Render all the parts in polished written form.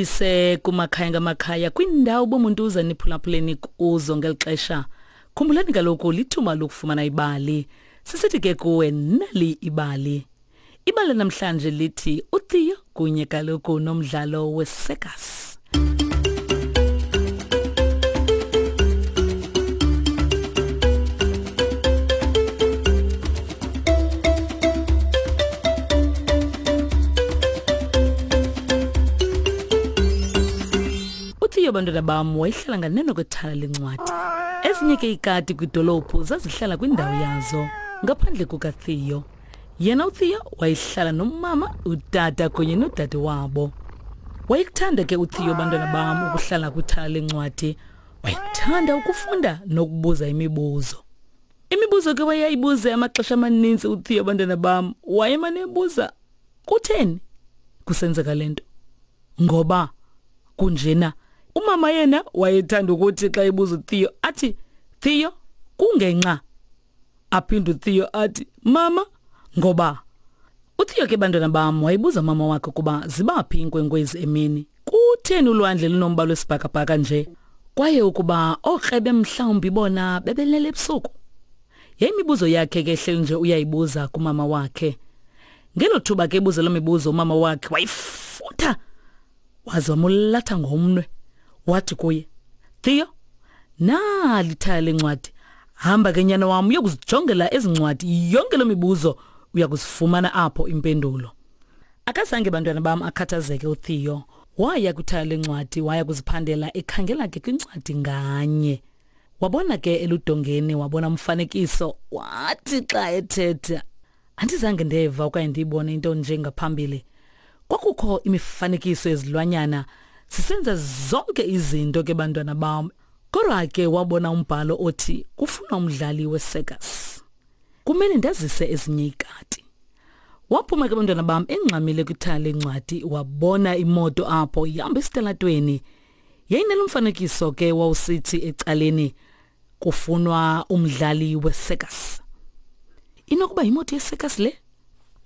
Mandibulise kumakhaya ngamakhaya kwindawo bomuntu uza niphulaphuleni kuzo ngeli xesha. Khumbulani kaloku lithuba lokufumana ibali. Sisithi ke kuwe nali ibali. Ibali namhlanje lithi uTheo kunye kaloku nomdlalo wesekas. UTheo bantwana bam wayehlala nganeno kwethala lencwadi. Ezinye ke ikati kwidolophu zazihlala kwindawo yazo ngaphandle kukaTheo. Yena uTheo wayehlala nomama, utata kunye nodade wabo. Wayekuthanda ke uTheo bantwana bam ukuhlala kwithala lencwadi. Wayekuthanda ukufunda nokubuza imibuzo. Imibuzo ke wayeyibuze amaxesha amaninzi uTheo bantwana bam. Wayemane ebuza kutheni kusenzeka le nto? Ngoba kunjena. Umama yena wayethanda ukuthi xa ebuza uTheo athi Theo kungenxa Aphinde uTheo athi, Mama, ngoba? UTheo ke bantwana bam wayebuza umama wakhe ukuba zibaphi iinkwenkwezi emini. Kutheni ulwandle lunombala wesibhakabhaka nje? Kwaye ukuba ookrebe mhlawumbi bona bebelele ebusuku? Yayimibuzo yakhe ke ehleli nje uyayibuza kumama wakhe. Ngelo thuba ke ebuza loo mibuzo umama wakhe wayifutha waze wamulatha ngomnwe wathi kuye Theo nali ithaya lencwadi hamba ke nyana wam uyokuzijongela ezi ncwadi yonke loo mibuzo uya kuzifumana apho impendulo akazange bantwana bam akhathazeke uTheo waya kwithaya lencwadi waya kuziphandela ekhangela ke kwincwadi nganye wabona ke eludongeni wabona umfanekiso wathi xa ethetha Andizange ndeva okanye ndiyibone into nje ngaphambili. Kwakukho imifanekiso yezilwanyana sisenza zonke izinto ke bantwana bam. Kodwa ke wabona umbhalo othi kufunwa umdlali wecircus. Kumele ndazise ezinye ikati. Waphuma ke bantwana bam engxamile kwithala lencwadi wabona imoto apho ihamba esitalatweni. Yayinelo mfanekiso ke wawusithi ecaleni kufunwa umdlali wecircus. Inokuba yimoto yecircus le?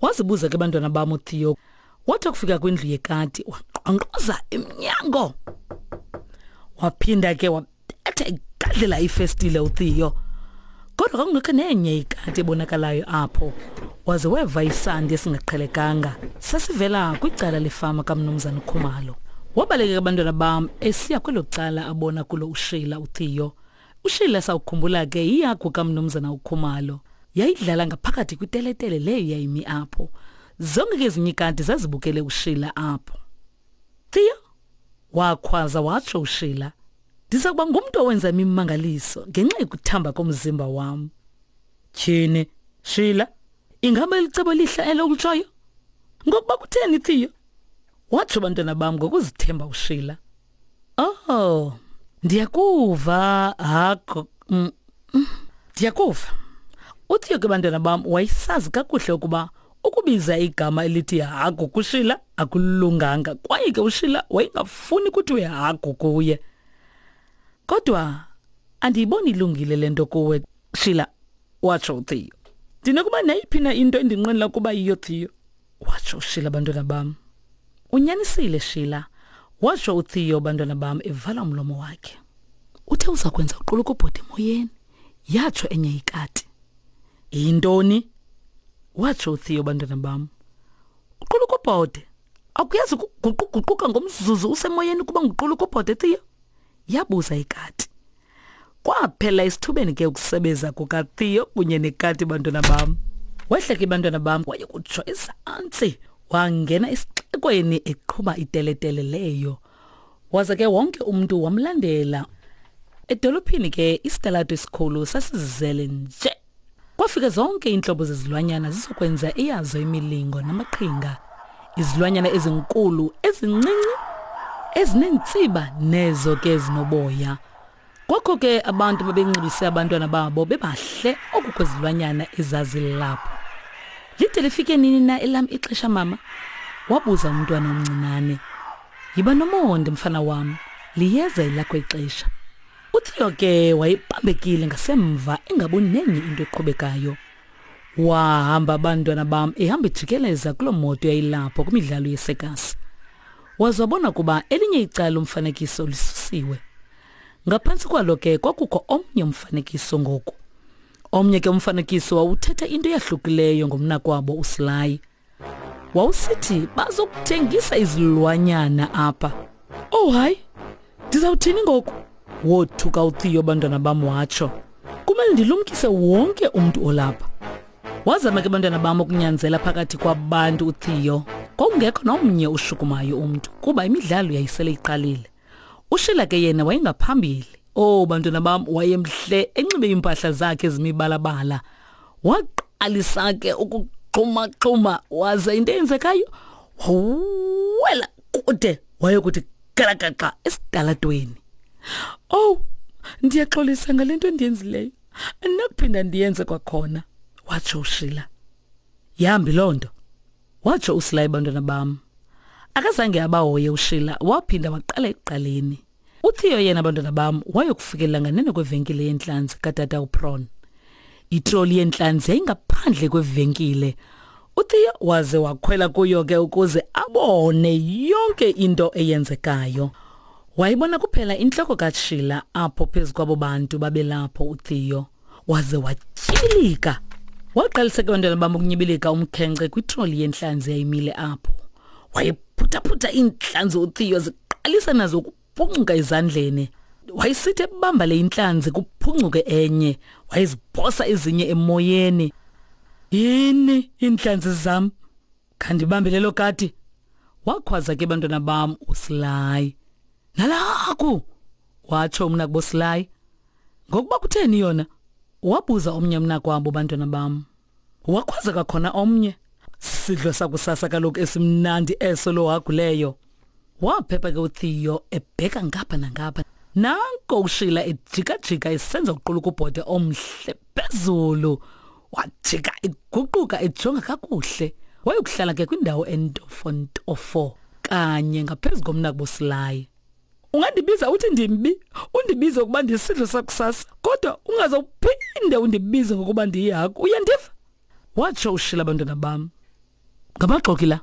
Wazibuza ke bantwana bam uTheo. Wathi akufika kwindlu yekati waqonqoza emnyango. Waphinda ke wabetha igadlela ifestile uTheo. Kodwa kwakungekho nenye ikati ebonakalayo apho. Waze weva isandi esingaqhelekanga sasivela kwicala lefama kaMnumzana Khumalo. Wabaleka abantwana bam esiya kwelo cala abona kulo uSheila uTheo. USheila sawukhumbula ke iyagu kaMnumzana uKhumalo. Yayidlala ngaphakathi kwiteletele leyo yayimi apho. Zonke ke ezinye ikati zazibukele uSheila apho. Theo, wakhwaza watsho uSheila. Ndiza kuba ngumntu owenza imimangaliso ngenxa yokuthamba komzimba wam. Tyhini, Sheila, ingaba elicebo lihle elo ulitshoyo? Ngokuba kutheni Theo? Watsho bantwana bam ngokuzithemba uSheila. Oh, ndiyakuva hago. Mm, mm, ndiyakuva. UTheo ke bantwana bam wayesazi kakuhle ukuba ukubiza igama elithi hagu kuShila akulunganga kwaye ke uShila wayengafuni kuthiwe hagu kuye. Kodwa andiyiboni ilungile le nto kuwe Shila, watsho uTheo. Ndinokuba nayiphi na into endinqwenela ukuba yiyo Theo. Watsho uShila bantwana bam. Unyanisile Shila, watsho uTheo bantwana bam evala umlomo wakhe. Uthe uza kwenza uqulukubhode emoyeni, yatsho enye ikati. Yintoni? Watsho uTheo bantwana bam. Uqulukubhode. Akuyazi ukuguquguquka ngomzuzu usemoyeni kuba nguqulukubhode Theo? Yabuza ikati. Kwaphela isithubeni ke ukusebeza kukaTheo kunye nekati bantwana bam. Wehla ke bantwana bam waye kutsho ezantsi wangena esixekweni eqhuba iteletele leyo. Waza ke wonke umntu wamlandela. Edolophini ke isitalato esikhulu sasizele nje. Kwafika zonke iintlobo zezilwanyana zizokwenza eyazo imilingo namaqhinga. Izilwanyana ezinkulu, ezincinci, ezineentsiba nezo ke zinoboya. Kwakho ke abantu babenxibise abantwana babo bebahle oku kwezilwanyana ezazilapho. Lide lifike nini na elam ixesha mama? Wabuza umntwana omncinane. Yiba nomonde mfana wam, liyeza elakho ixesha. UTheo ke wayebambekile ngasemva engaboni nenye into eqhubekayo. Wahamba abantwana bam ehamba ejikeleza kuloo moto yayilapho kwimidlalo yesekasi. Waze wabona ukuba elinye icala lomfanekiso lisusiwe. Ngaphantsi kwalo ke kwakukho omnye umfanekiso ngoku. Omnye ke umfanekiso wawuthetha into eyahlukileyo ngomnakwabo uSly. Wawusithi bazokuthengisa izilwanyana apha. Oh hayi, ndizawuthini ngoku? Wothuka uTheo bantwana bam watsho. Kumele ndilumkise wonke umntu olapha. Wazama ke bantwana bam ukunyanzela phakathi kwabantu uTheo. Kwakungekho nomnye ushukumayo umntu kuba imidlalo yayisele iqalile. Ushila ke yena wayengaphambili. Oh bantwana bam wayemhle enxibe iimpahla zakhe ezimibalabala. Waqalisa ke ukuxhuma-xhuma waze into eyenzekayo wawela kude wayokuthi galagaxa esitalatweni. Oh ndiyaxolisa ngale nto endiyenzileyo. Andinakuphinda ndiyenze kwakhona, watsho uShila. Yambi loo nto, watsho uSilayi bantwana bam. Akazange abahoye uShila, waphinda waqala ekuqaleni. UTheo yena bantwana bam wayokufikelela nganeno kwevenkile yentlanzi katata uPron. Itroli yentlanzi yayingaphandle kwevenkile. UTheo waze wakhwela kuyo ke ukuze abone yonke into eyenzekayo. Wayibona kuphela intloko kaShila apho phezu kwabo bantu babelapho uTheo. Waze watyibilika. Waqalisa ke bantwana bam ukunyibilika umkhenkce kwitroli yentlanzi yayimile apho. Wayephuthaphutha iintlanzi uTheo ziqalisa nazo ukuphuncuka ezandleni. Wayesithi ebamba le intlanzi kuphuncuke enye, wayeziphosa ezinye emoyeni. Yini iintlanzi zam? Khandibambe lelo kati. Wakhwaza ke bantwana bam uSly. Nalaku! Watsho umnakubo Sly. Ngokuba kutheni yona? Wabuza omnye umnakwabo bantwana bam. Wakhwaza kwakhona omnye. Sidlo sakusasa kaloku esimnandi eso lo haguleyo. Waphepha ke uTheo ebheka ngapha nangapha. Nanko uShila ejikajika esenza uqulukubhode omhle phezulu. Wajika eguquka ejonga kakuhle. Wayokuhlala ke kwindawo entofontofo kanye ngaphezu komnakubo Sly. Ungandibiza uthi ndimbi, undibize ukuba ndisidlo sakusasa, kodwa ungaze uphinde undibize ngokuba ndiyihagu. Uyandiva? Watsho uShila bantwana bam. Ngamaxoki la.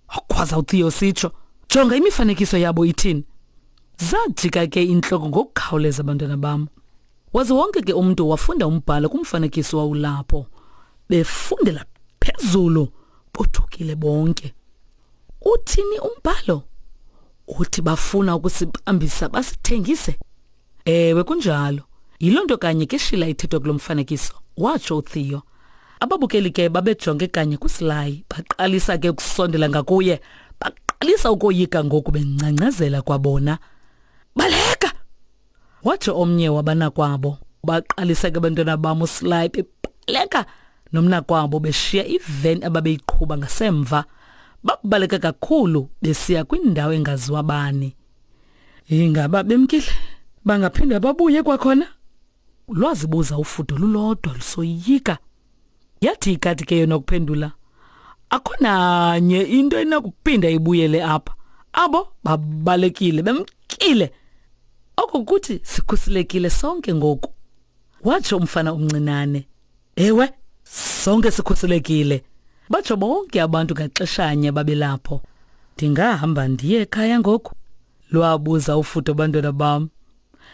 Wakhwaza uTheo sitsho. Jonga imifanekiso yabo ithini. Zajika ke intloko ngokukhawuleza bantwana bam. Waze wonke ke umntu wafunda umbhalo kumfanekiso wawulapho. Befundela phezulu, bothukile bonke. Uthini umbhalo? Uthi bafuna ukusibambisa basithengise? Ewe kunjalo. Yiloo nto kanye ke Shila ithethwa kulo mfanekiso, watsho uTheo. Ababukeli ke babejonge kanye kuSly, baqalisa ke ukusondela ngakuye, baqalisa ukoyika ngoku bengcangcazela kwabona. Baleka! Watsho omnye wabanakwabo. Baqalisa ke abantwana bam uSly bebaleka nomnakwabo beshiya iveni ababeyiqhuba ngasemva. Babaleka kakhulu besiya kwindawo engaziwa bani. Ingaba bemkile? Bangaphinda babuye kwakhona? Lwazibuza ufudo lulodwa lusoyika. Yathi ikati ke yona ukuphendula, akho nanye into enokuphinda ibuyele apha. Abo babalekile bemkile. Oko kuthi sikhuselekile sonke ngoku, watsho umfana omncinane. Ewe, sonke sikhuselekile, batsho bonke abantu ngaxeshanye babelapho. Ndingahamba ndiye ekhaya ngoku? Lwabuza ufudo bantwana bam.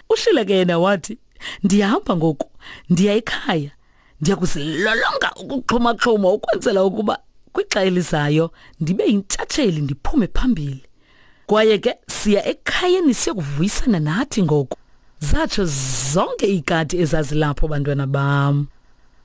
Ushila ke yena wathi, ndiyahamba ngoku, ndiya ekhaya. Ndiya kuzilolonga ukuxhumaxhuma ukwenzela ukuba kwixa elizayo ndibe yintshatsheli ndiphume phambili. Kwaye ke siya ekhayeni siyokuvuyisana nathi ngoku. Zatsho zonke iikati ezazilapho bantwana bam.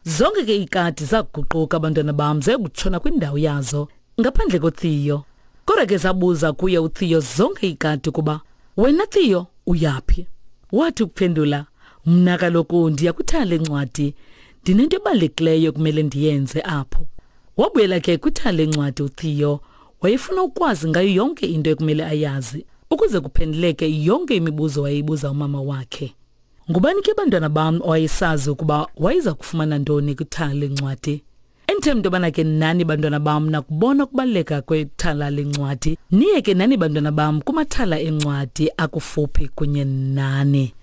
Zonke ke iikati zaguquka bantwana bam zayokutshona kwindawo yazo ngaphandle koTheo. Kodwa ke zabuza kuye uTheo zonke iikati ukuba, wena Theo uyaphi? Wathi ukuphendula, mna kaloku ndiya kwithala lencwadi, ndinento ebalulekileyo ekumele ndiyenze apho. Wabuyela ke kwithala lencwadi uTheo, wayefuna ukwazi ngayo yonke into ekumele ayazi ukuze kuphenduleke yonke imibuzo wayeyibuza umama wakhe. Ngubani ke bantwana bam owayesazi ukuba wayeza kufumana ntoni kwithala lencwadi? Endithemba into yobana ke nani bantwana bam nakubona ukubaluleka kwethala lencwadi. Niye ke nani bantwana bam kumathala encwadi akufuphi kunye nani.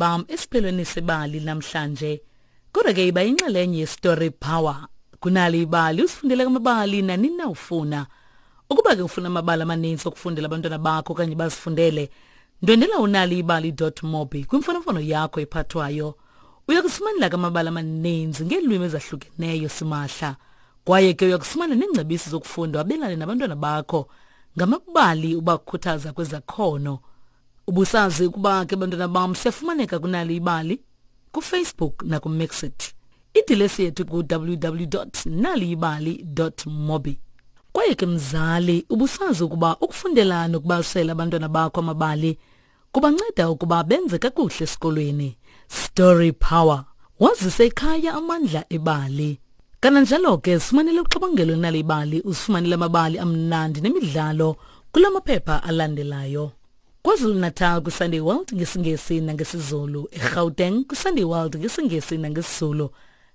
bam esiphelweni sebali namhlanje. Kodwa ke iba yinxalenye yeStory Power. Kunali ibali usifundele amabali nanini na ufuna. Ukuba ke ufuna amabali amaninzi okufundela abantwana bakho okanye bazifundele, ndwendela unaliibali.mobi kwimfonomfono yakho ephathwayo. Uya kufumanela ke amabali amaninzi ngeelwimi ezahlukeneyo simahla. Kwaye ke uya kufumana neengcebiso zokufunda wabelane nabantwana bakho ngamabali ubakhuthaza kwezakhono. Ubusazi ukuba ke bantwana bam siyafumaneka kunalo ibali kuFacebook nakuMixit. Idilesi yethu ku-www.naliyibali.mobi. Kwaye ke mzali, ubusazi ukuba ukufundela nokubalisela abantwana bakho amabali kubanceda ukuba benze kakuhle esikolweni. Story Power. Wazise ekhaya amandla ebali. Kananjalo ke sifumanele uxabangelo nalibali usifumanele amabali amnandi nemidlalo kula maphepha alandelayo. KwaZulu-Natal kwiSunday World ngesiNgesi nangesiZulu, eGauteng kwiSunday World ngesiNgesi nangesiZulu,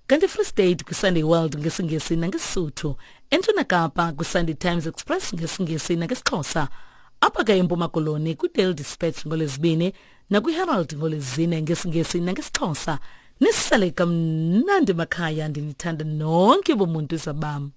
kanti eFree State kwiSunday World ngesiNgesi nangeSisuthu, eNtshona Kapa kwiSunday Times Express ngesiNgesi nangesiXhosa, apha ke eMpuma Koloni kwiDaily Dispatch ngoLwezibini nakwiHerald ngoLwezine ngesiNgesi nangesiXhosa. Nisale kamnandi makhaya, ndinithanda nonke bomuntu zabam.